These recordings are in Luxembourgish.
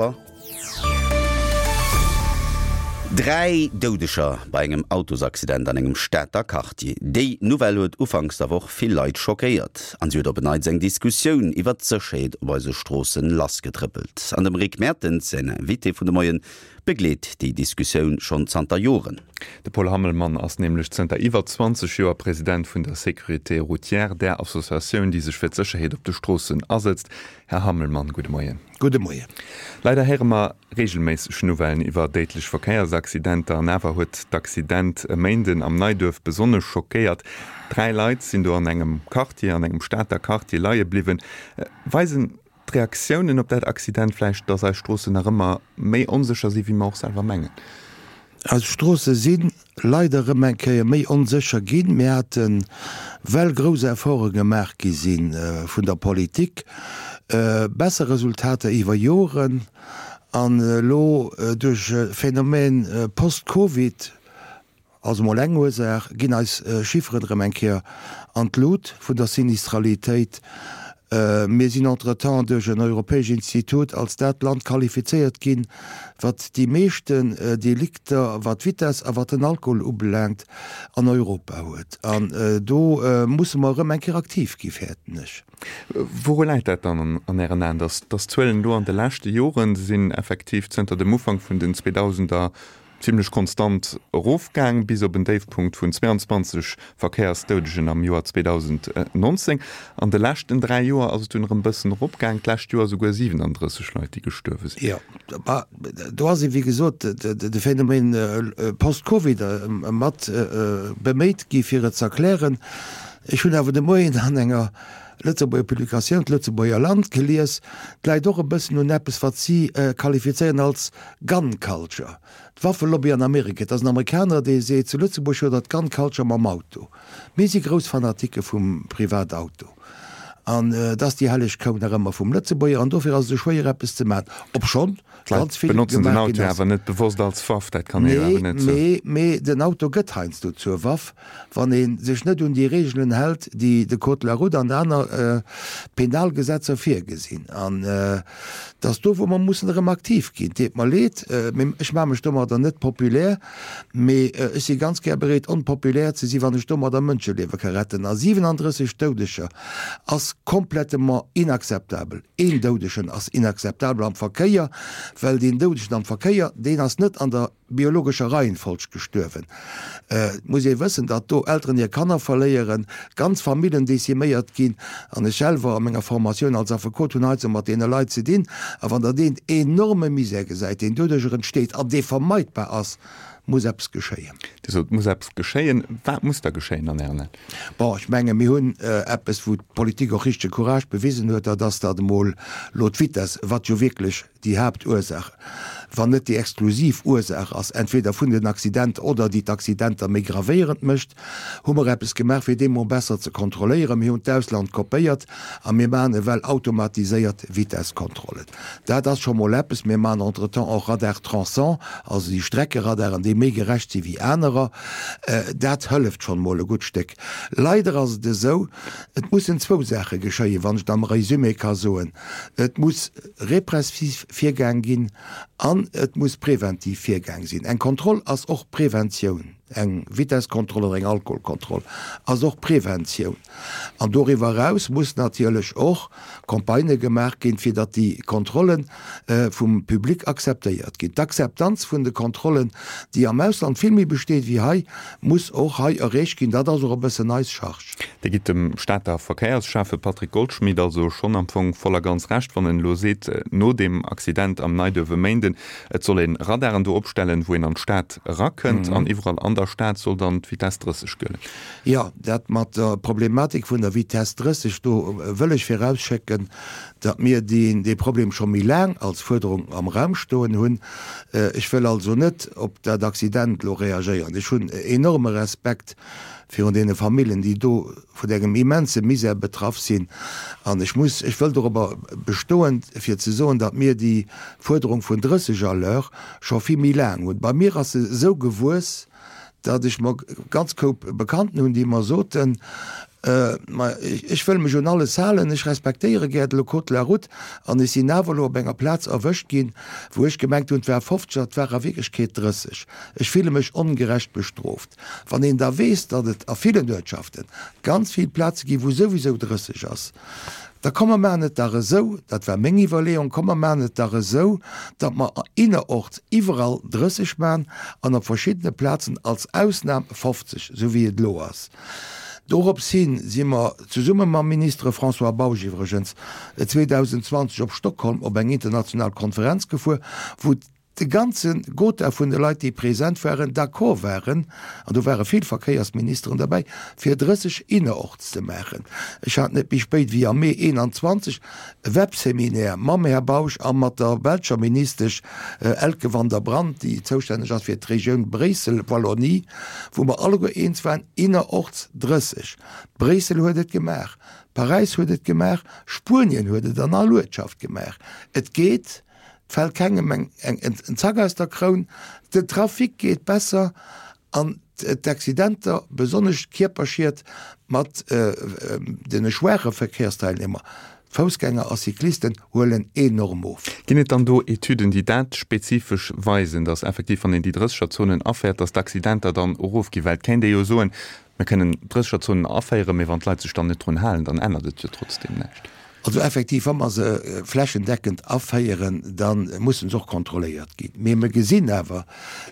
Hallwer. 3 Doudeger bei engem Autosaccident an engem Stater Quartier. Déi Nouvelle huet ufanks der Woch vill Leit schockéiert an si huet op en Neits eng Diskussioun iwwert d'Sécherheet op eise Stroossen lassgetrëppelt. An dem Rick Mertens säin Invité vun de Moien begleet déi Diskussioun schonn zanter Joren. De Paul Hammelmann ass nämlech zënter iwwer 20 Joer President vun der Sécurité routière, där Associatioun, déi sech fir d'Sécherheet op de Stroossen asëtzt. Här Hammelmann, gudde Moien. Gudde Moien. Leider héiere mer reegelméisseg Nouvellen iwwer déidlech Verkéiersaccidenter an awer huet d'Accident e Méinden am Neiduerf besonnesch schockéiert. 3 Leit sinn do an engem Quartier, an engem Stater Quartier leie bliwwen. Weisen d'Reaktiounen op dat Accident vläicht, dass eis Stroossen nach ëmmer méi onsécher sinn, wéi mer och selwer mengen? Eis Stroosse si leider erëm eng Kéier méi onsécher ginn. Mir haten, well grouss Efforte gemaach gi si vun der Politik, besser Resultater iwwer Joren. An elo duerch e Phänomen post-Covid, Also mol eng Ursaach, ginn eis Chifferen erëm eng Kéier an d'Lut vun der Sinistralitéit. Mir sinn entretemps duerch en europäesch Institut als dat Land qualifizéiert ginn, wat déi meeschten Delikter, wat d'Vitess a wat den Alkohol ubelaangt, an Europa huet. An do musse mer erëm eng Kéier aktiv gi fäerten ech. Wouru läit dat dann an Ären Aen, datt d'Zuelen do an de leschte Joren, se sinn effektiv zënter dem Ufank vun den 2000er Zimlech konstant erofgaang, bis op en Déifpunkt vun 22 Verkéiersdoudegen am Joer 2019. An de leschten 3 Joer ass et dunn erëm bëssen eropgaang, d'lescht Joer souguer 37 Leit, déi gestuerwe sinn. Jo, ma do ass ee wéi gesot de Phänomen post-Covid mat beméit gi fir et z'erklären. Ech hunn awer de Moien an enger Lëtzebuerger Publikatioun, d'Lëtzebuerger Land, gelies, et läit och e bëssen un eppes wat si qualifizéieren als Gun culture, d'Waffelobby an Amerika. Et ass en Amerikaner, dee seet, zu Lëtzebuerg huet der d'Gun culture mam Auto. Mir si grouss Fanatike vum Privatauto. An et ass déi helleg Kou nach ëmmer vum Lëtzebuerger. An dofir ass et esou schwéier, eppes ze maachen, obschonn ganz vill gemaach ginn ass. D'Leit benotzen den Auto awer net bewosst als Waff, dat kann ee jo awer net soen. Nee, mee den Auto gëtt heiansdo zur Waff, wann ee sech net un déi Reegelen hält, déi de Code de la route an aner Penalgesetzer virgesinn. An et ass do, wou mer mussen erëm aktiv ginn. Deet mer leed, mee ech maache mech domadder net populär, mee ech si ganz gär bereet, onpopulär ze sinn, wann ech domadder Mënscheliewe ka retten. A 37 Doudeger ass komplettement inakzeptabel. Een Doudegen ass inakzeptabel am Verkéier, well deen Doudegen am Verkéier, deen ass net an der biologescher Reihenfolg gestuerwen. Et muss ee wëssen, datt do Elteren hir Kanner verléieren, ganz Famillen deciméiert ginn. An ech selwer a menger Formatioun als Affekot hunn heiansdo mat deene Leit ze dinn. A wann Der deen enorme Misär gesäit, deen doduercher entsteet an dee vermeidbar ass, muss eppes geschéien. Dir sot, et muss eppes geschéien. Wat muss da geschéien an Ären Aen? Bon, ech menge mir hunn eppes, wou d'Politik och richtege Courage bewisen huet, dat ass, datt emol elo d'Vitesse, wat jo wierklech déi Haaptursaach, wann net déi exklusiv Ursaach ass, entweder vun den Accidenter oder déi d'Accidenter méi gravéierend mécht, hu mer eppes gemaach, fir dee mol besser ze kontrolléieren. Mir hunn d'Ausland kopéiert a mir maachen ewell automatiséiert Vitesskontrollen. Dat ass scho mol eppes. Mir maachen entretemps och Radar trançant, also déi Streckeradaren, déi méi gerecht si wéi anerer. Dat hëlleft schonn mol e gutt Stéck. Leider ass et esou, et mussen zwou Saache geschéien, wann ech et am Résumé ka soen. Et muss repressiv virgaang ginn an et muss preventiv virgaang sinn. Eng Kontroll ass och Preventioun, eng Vitesskontroll oder eng Alkoholkontroll ass och Preventioun. An doriwwer eraus muss natierlech och Campagnë gemaach ginn, fir datt déi Kontrolle vum Public akzeptéiert ginn. D'Akzeptanz vun de Kontrollen, déi am Ausland vill méi besteet wéi hei, muss och hei erreecht ginn. Dat ass och e bëssen eis Charge. Dir gitt dem Stater Verkéiersschäffe Patrick Goldschmidt also schonn am Fong voll a ganz Recht, wann en elo seet, no deem Accident am Neiduerf e Méinden, et soll ee Radaren do opstellen, wou een an d'Stad erakënnt an iwwerall an der Stad soll dann d'Vitesse 30 gëllen. Jo, dat mat der Problematik vun der Vitesse 30, do wëll ech virausschécken, datt mir dee Problem scho méi laang als Fuerderung am Raum stoen hunn. Ech wëll also net op dat Accident elo reagéieren. Ech hunn enorme Respekt virun deene Familljen, déi do vun engem immense Misär betraff sinn. An ech muss, ech wëll dorobber bestoen, fir ze soen, datt mir déi Fuerderung vun 30 à l'heure scho vill méi laang hunn. Bei mir ass se esou gewuess, datt ech mer ganz Koup Bekannten hunn, déi mer soten. Ma ech wëll mech un alles halen, ech respektéiere gär de Code de la route an ech sinn awer elo op enger Plaz erwëscht ginn, wou ech gemengt hunn, et war 50 an et war a Wierklechkeet 30. Ech fille mech ongerecht bestrooft. Wann een da weess, datt et a villen Uertschaften ganz vill Plaze ginn, wou souwisou 30 ass, da komm mer maachen et dach esou, dat war meng Iwwerleeung, komm mer maachen et dach esou, datt mer innerorts iwwerall 30 maachen an op verschiddene Plazen als Ausnam 50, esou wéi et elo ass. Dorops hin si mer, zesumme mam Ministere François Bausch iwwregens, 2020 op Stockholm op eng international Konferenz gefuer, wou de ganze Gotha vun de Leit, déi present waren, d'accord waren, an do ware vill Verkéiersministeren derbäi, fir 30 innerorts ze maachen. Ech hat net méi spéit wéi am Mee 21 e Webseminaire mam Här Bausch a mat der belscher Ministesch Elke van der Brandt, déi zoustänneg ass fir d'Regioun Bréissel-Wallonie, wou mer alleguer eens waren, innerorts 30. Bréissel huet et gemaach, Paräis huet et gemaach, Spuenien huet et an all Uertschaft gemaach. Et geet, et fält kengem en Zack aus der Kroun, den Trafic geet besser an d'Accidenter, besonnesch d'Kierperschied mat de schwaache Verkehrsteilnehmer, Foussgänger a Cyclisten, huelen enorm of. Ginn et dann do Etüden, déi dat spezifesch weisen, datt effektiv, wann een déi Drëssegerzonen afäert, datt d'Accidenter dann erofginn? Well et kéint ee jo soen, Mir kënnen Drëssegerzonen aféieren, mee wann d'Leit sech dann net drun halen, dann ännert et jo trotzdem näischt. Also effektiv, wa mer se flächendeckend aféieren, da mussen se och kontrolléiert ginn. Mee mer gesinn awer,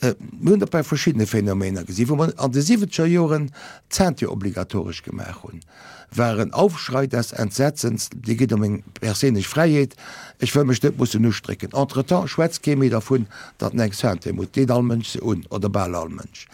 mir hunn dat bei verschiddene Phänomener gesinn, wou mer an de siwwenzeger Joren d'Ceinture obligatoresch gemaach hunn, war en Aufschrei des Entsetzens, Dir gitt ëm meng perséinlech Fräiheet, ech wëll mech net mussen ustrécken. Entretemps schwätzt kee méi dervun, datt en eng Ceinture muss, deet all Mënsch se un, oder bal all Mënsch.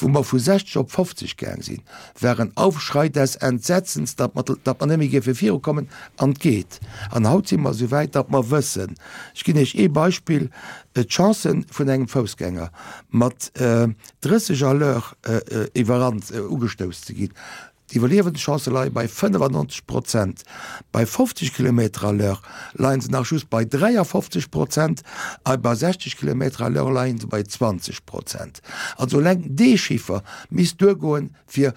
Wou mer vu 60 op 50 gaang sinn, war en Aufschrei des Entsetzens, datt mer, datt mer net méi géife virukommen, an et geet. An haut si mer esou wäit, datt mer wëssen, ech ginn Iech ee Beispill, d'Chancen vun engem Foussgänger mat 30 à l'heure iwwerrannt, ugestouss ze ginn, D'Iwwerliewenschancë leie bei 95 Prozent. Bei 50 Kilometer à l'heure leie se nach just bei 53 Prozent a bei 60 Kilometer à l'heure leie se bei 20 Prozent. Also eleng dee Chiffer misst duergoen, fir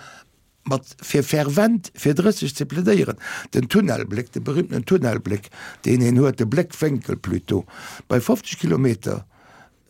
mat fir fervent fir 30 ze plädéieren. Den Tunnelbléck, de berühmtenen Tunnelbléck, deen een huet, de Bléckwénkel plutôt, bei 50 Kilometer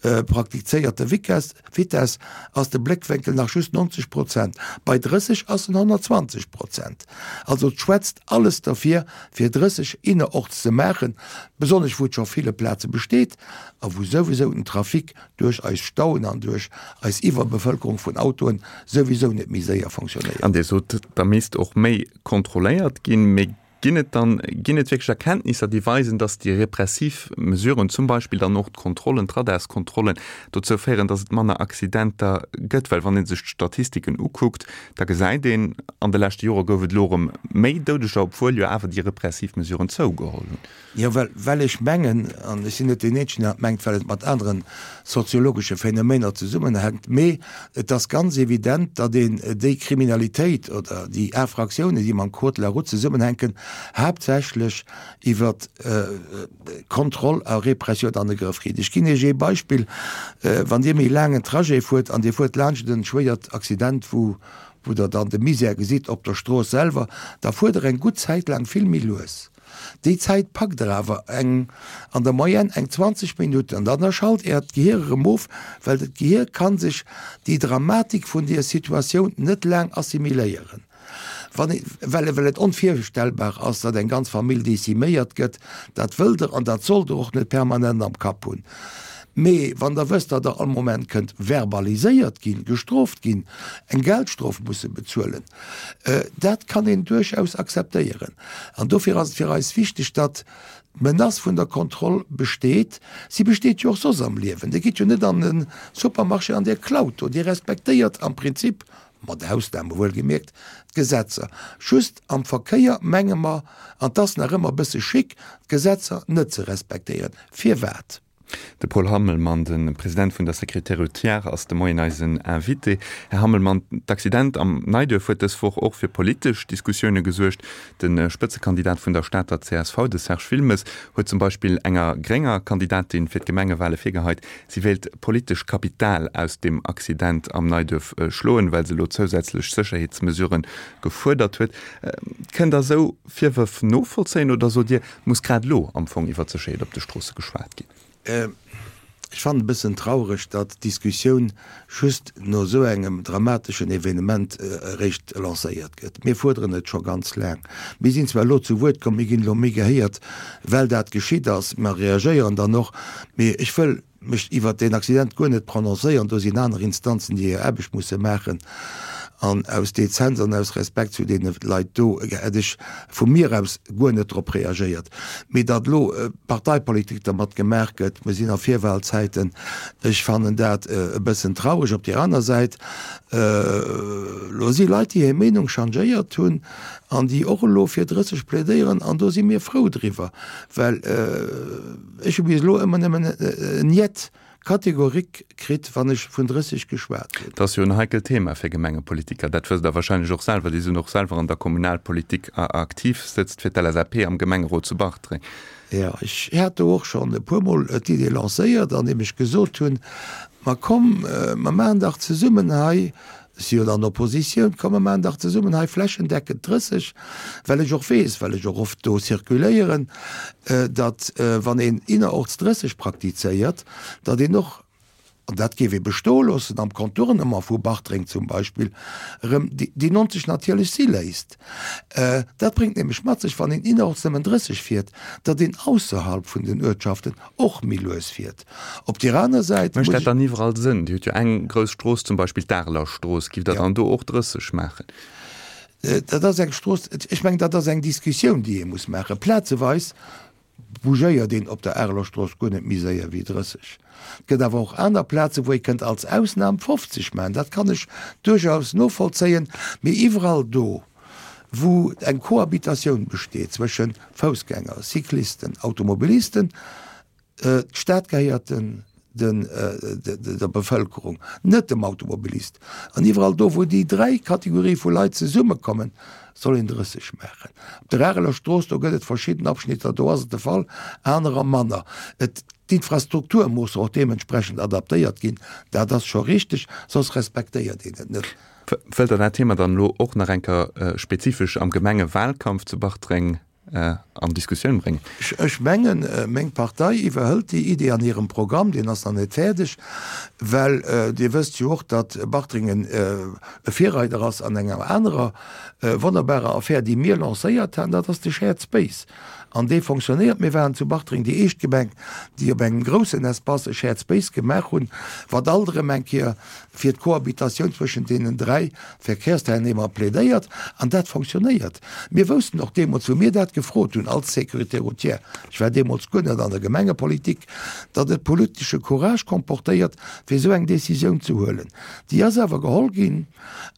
Praktizéierte Vitess ass de Bléckwénkel nach just 90 Prozent, bei 30 ass en 120 Prozent. Also et schwätzt alles derfir, fir 30 innerorts ze maachen, besonnesch wou et scho ville Plaze besteet a wou souwisou den Trafic duerch eis Stauen an duerch eis Iwwerbevëlkerung vun Autoen souwisou net méi séier fonctionnéiert. An Dir sot, da misst och méi kontrolléiert ginn. Mee Ginn et dann, ginn et wierklech Erkenntnisser, déi weisen, dass déi repressiv Mesuren, zum Beispill dann och d'Kontrollen, d'Radarskontrollen, dozou féieren, dass et manner Accidenter gëtt? Well wann ee sech d'Statistiken ukuckt, da gesäit een, an de leschte Jore gouf et elo erëm méi Doudeger, obwuel jo awer déi repressiv Mesuren zougeholl hunn. Jo, well, well ech mengen, an ech sinn net deen Eenzegen, deen dat mengt, well et mat anere soziologesche Phänomener zesummenhänkt, mee et ass ganz evident, datt een déi Kriminalitéit oder déi Infractiounen, déi mam Code de la route zesummenhänken, haaptsächlech iwwer Kontroll a Repressioun an de Grëff kritt. Ech ginn Iech ee Beispill, Wann Dir méi laang en Trajet fuert an Dir fuert laanscht e schwéiert Accident, wou, wou Der dann de Misär gesitt op der Strooss selwer, da fuert Der eng gutt Zäit laang vill méi lues. Déi Zäit packt der awer eng an der Moyenne eng 20 Minutten an dann schalt äert Gehier erëm of, well dat Gehier kann sech déi Dramatik vun deer Situatioun net laang assimiléieren, wann ee, well well et onvirstellbar ass, datt eng ganz Famill deziméiert gëtt. Dat wëllt der an dat sollt der och net permanent am Kapp hunn. Mee wann der wësst, datt der all Moment kënnt verbaliséiert ginn, gestrooft ginn, eng Geldstrof musse bezuelen, Dat kann een duerchaus akzeptéieren. An dofir ass et fir eis wichteg, datt d'Menace vun der Kontroll besteet. Si besteet jo och soss am Liewen. Dir gitt jo net an e Supermarché an Dir klaut do. Dir respektéiert am Prinzip, mat Ausname wuelgemierkt, d'Gesetzer. Just am Verkéier menge mer, an 't ass nach ëmmer e bësse chic, d'Gesetzer net ze respektéieren. Firwat? De Paul Hammelmann, de President vun der Sécurité routière, ass de Moien eisen Invité. Här Hammelmann, d'Accident am Neiduerf huet dës Woch och fir politesch Diskussioune gesuergt. De Spëtzekandidat vun der Stater csv, de Serge Wilmes, huet zum Beispill enger grénger Kandidatin fir d'Gemengewale virgeheit, si wéilt politesch Kapital aus deem Accident am Neiduerf schloen, well se elo zousätzlech Sécherheetsmesurë gefuerdert huet. Kënnt Der esou Virwërf novollzéien oder sot Dir, muss grad elo am Fong iwwer d'Sécherheet op de Stroosse geschwat ginn? Ech fannen e bëssen traureg, datt d'Diskussioun just no esou engem dramateschen Evenement eréischt lancéiert gëtt. Mir fuerderen et scho ganz laang. Mir sinn zwar elo zu Wuert komm, mir ginn elo méi gehéiert, well dat geschitt ass. Mer reagéieren dann och. Mee ech wëll mech iwwert deen Accident guer net prononcéieren, do sinn aner Instanzen, déi hir Aarbecht musse maachen. An aus Dezenz an aus Respekt zu deene Leit do hätt ech vu mir aus guer net drop reagéiert. Mee datt elo Parteipolitik dermat gemaach gëtt, mir sinn a Virwahlzäiten, ech fannen dat e bëssen traureg. Op där aner Säit, elo si Leit, déi hir Meenung changéiert hunn an déi och elo fir 30 plädéieren, an do si mir frou driwwer, well, Ech hu bis elo ëmmer nëmmen en Niet catégorique kritt, wann ech vun 30 geschwat hunn. Dat ass jo en heikelt Thema fir Gemengepolitiker. Dat wësst Der wahrscheinlech och selwer. Dir sidd och selwer an der Kommunalpolitik aktiv, sëtzt fir d'LSAP am Gemengerot zu Bartreng. Jo, ech hat do och schonn e puermol d'Idee lancéiert, andeem ech gesot hunn, Ma komm, mer maachen dach zesummen hei Ech si jo an der Oppositioun, komm mer maachen dach zesummen hei flächendeckend 30, well ech och weess, well ech och oft do circuléieren, datt wann een innerorts 30 praktizéiert, datt een och, an dat géif ee bestoe loossen am Contournement vu Bartreng zum Beispill, erëm déi 90 natierlech si léisst. Dat bréngt nämlech mat sech, wann een innerorts nëmmen 30 fiert, datt een ausserhalb vun den Uertschaften och méi lues fiert. Op deer aner Säit muss ech. Mécht dat dann iwwerall Sënn? Dir hutt jo eng grouss Strooss, zum Beispill d'Areler Strooss. Giff Der dann do och 30 maachen? Dat ass eng Strooss, ech mengen, dat ass eng Diskussioun, déi ee muss maachen. Plazeweis bougéiert een op der Areler Strooss guer net méi séier wéi 30. Et gëtt awer och aner Plazen, wou ee kënnt als Ausnam 50 maachen. Dat kann ech duerchaus novollzéien. Mee iwwerall do, wou eng Cohabitatioun besteet zwësche Foussgänger, Cyclisten, Automobilisten, D'Stad gehéiert der Bevëlkerung, net dem Automobilist. An iwwerall do, wou déi dräi Kategorië vu Leit zesummekommen, soll een 30 maachen. Op der Areler Strooss, do gëtt et verschidden Abschnitter, do ass et de Fall, anerer manner. D'Infrastruktur muss och deementsprechend adaptéiert ginn, dat ass scho richteg, soss respektéiert een et net. Wëllt Der dat Thema dann elo och nach eng Kéier spezifesch am Gemengewalkampf zu Bartreng an Diskussioun bréngen? Ech mengen, meng Partei iwwerhëlt déi Idee an hirem Programm, deen ass nach net fäerdeg, well Dir wësst jo och, datt Bartreng e Virreider ass an enger anerer wonnerbarer Affär, déi mir lancéiert haten, dat ass de Shared Space. An dee fonctionnéiert. Mir waren zu Bartreng déi éischt Gemeng, déi op engem groussen Espace e Shared Space gemaach hunn, wat alt erëm eng Kéier fir d'Cohabitatioun zwëschen deenen 3 Verkehrsteilnehmer plädéiert, an dat fonctionnéiert. Mir woussten och deemools, wou mir dat gefrot hunn als Sécurité routière, ech war deemools guer net an der Gemengepolitik, datt et politesche Courage comportéiert, fir esou eng Décisioun ze huelen. Déi ass awer geholl ginn,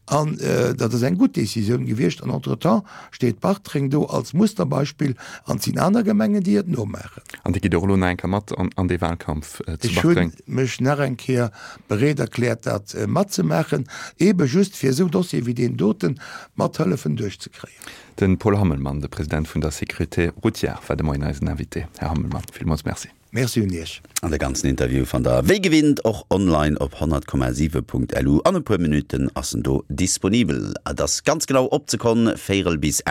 an dat ass eng gutt Décisioun gewiescht. An entretemps steet Bartreng do als Musterbeispill, an et sinn aner Gemengen, déi et nomaachen. An Dir gitt och elo nach eng Kéier mat an dee Wahlkampf zu Bartreng? Ech hu mech nach eng Kéier bereet erkläert dat matzemaachen, eebe just fir esou Dossiere wéi deen doten mat hëllefen duerchzekréien. De Paul Hammelmann, de President vun der Sécurité routière, war de Moien eisen Invité. Här Hammelmann, villmools Merci. Merci un Iech. An de ganzen Interview fannt der wéi gewinnt och online op 100,7.lu. An e puer Minutten ass en do disponibel. Et ass ganz genau op d'Sekonn véierel bis.